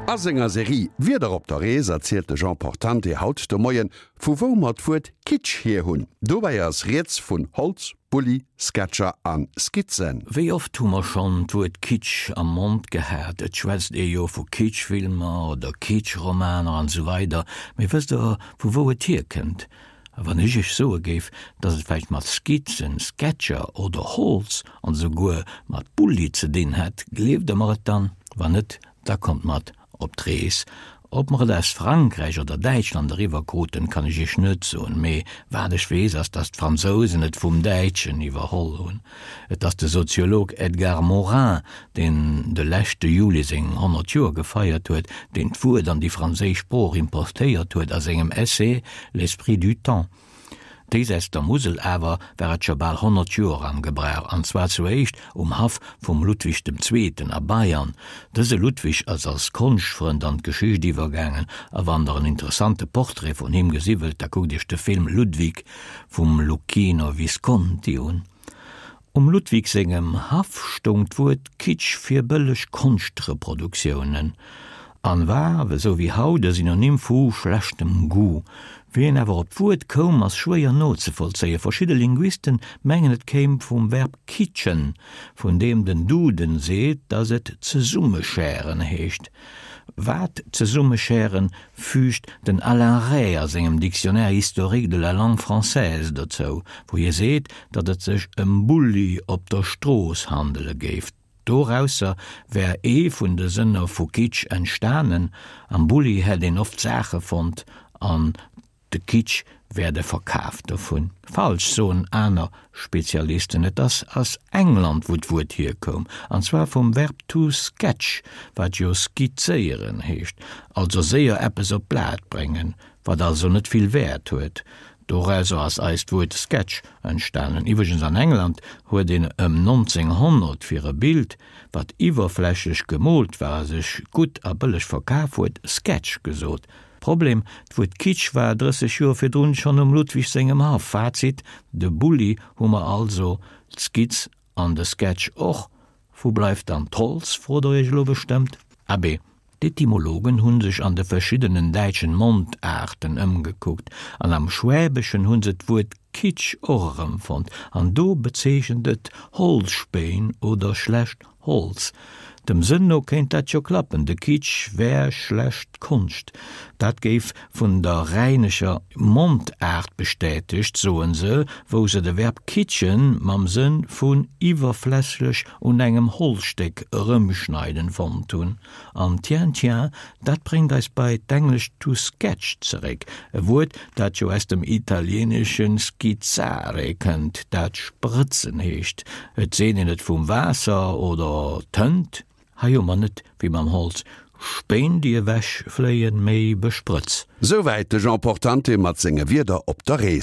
A senger Serie Wieder op der Rees erzielt de Jean Portante haut de Moien, vu wou mer d'Wuert Kitsch hier hunn. Dobäi ass rieds vun Holz, Bulli, Sketcher a Skizzen. Wéi oft hu mer schonn d'Wuert Kitsch am Mond gehat? Et schwätzt ee jo vu Kitschfilmer oder Kitschromaner an esou weider. Mee wësst der, vu wou et hierkënnt? A wann ech iech soe géif, dass et vläicht mat Skizzen, Sketcher oder Holz an esouguer mat Bulli ze dinn hätt, gleeft der mer et dann? Wann net, da kommt mat op d'Rees. Ob mer et aus Frankräich oder Däitschland eriwwer kruten, kann ech iech net soen, mee wat ech weess ass, dass d'Fransousen et vum Däitschen iwwerholl hunn. Et ass de Soziolog Edgar Morin, deen de leschte Juli seng 100 Joer gefeiert huet, deen d'Wuert an déi franséisch Sprooch importéiert huet a sengem Essai L'esprit du temps. Déisäits der Musel awer war et scho bal 100 Joer am Gebrauch, an zwar zu éischt um Haff vum Ludwig dem Zweeten a Bayern. Dëse Ludwig ass als Konschtfrënd an d'Geschicht iwwergaangen, a wann der en interessante Portrait vun him gesi wëllt, da kuckt iech de Film Ludwig vum Luchino Visconti un. Um Ludwig sengem Haff stoung d'Wuert Kitsch fir bëlleg Konschtreproduktiounen an war, esou wéi haut, e Synonym vu schlechtem Goût. Wéi een awer op d'Wuert koum, ass schwéier nozevollzéien. Verschidde Linguisten mengen, et kéim vum Verb kitschen, vun deem den Duden seet, datt et zesummeschären heescht. Wat zesummeschären, füügt den Alain Rey a sengem Dictionnaire historique de la langue française dozou, wou hie seet, datt et sech ëm Bulli op der Strooss handele géif. Dorausser wär ee vun de Sënner vu Kitsch entstanen, am Bulli hätt een oft Saache fonnt an de Kitsch wär de Verkaf dovun. Falsch, soen aner Spezialisten. Et ass aus England, wou d'Wuert hierkoum, an zwar vum Verb to sketch, wat jo skizzéieren heescht, also séier eppes op d'Blat bréngen, wat also net vill Wäert huet. Dorauser ass eist Wuert Sketch entstanen. Iwwregens an England huet een ëm 1900 fir e Bild, wat iwwerflächlech gemoolt war a sech gutt a bëlleg verkaf huet, Sketch gesot. Problem, D'Wuert Kitsch war 30 Joer virdrun schonn um Ludwig sengem Haff. Fazit, De Bulli hu mer also, d'Skizz an de Sketch och. Wou bleift dann d'Holz, frot der iech elo bestëmmt. Abee, d'Etymologen hu sech an de verschiddenen däitschen Mondaarten ëmgekuckt an am Schwäbeschen hu se d'Wuert Kitsch och erëmfonnt an do bezeechent et Holzspéin oder schlecht Holz. Dem Sënn no kéint dat jo klappen, de Kitsch wär schlecht Konscht. Dat géif vun der rhäinescher Mondaart bestätegt, soen se, wou se de Verb kitschen mam Sënn vun iwwerflächlech un engem Holzstéck erëmschneiden fonnt hunn. An tiens, tiens, dat bréngt eis bei d'englescht to sketch zeréck, e Wuert, dat jo aus dem italieenesche schizzare kënnt, dat sprëtzen heescht. Et seet een et vum Waasser oder Tënt. Hei hu mer net, wéi mam Holz, Spéin déi ewech fléien, mee Besprëtz. Souwäit de Jean Portante mat senge Wierder op der Rees.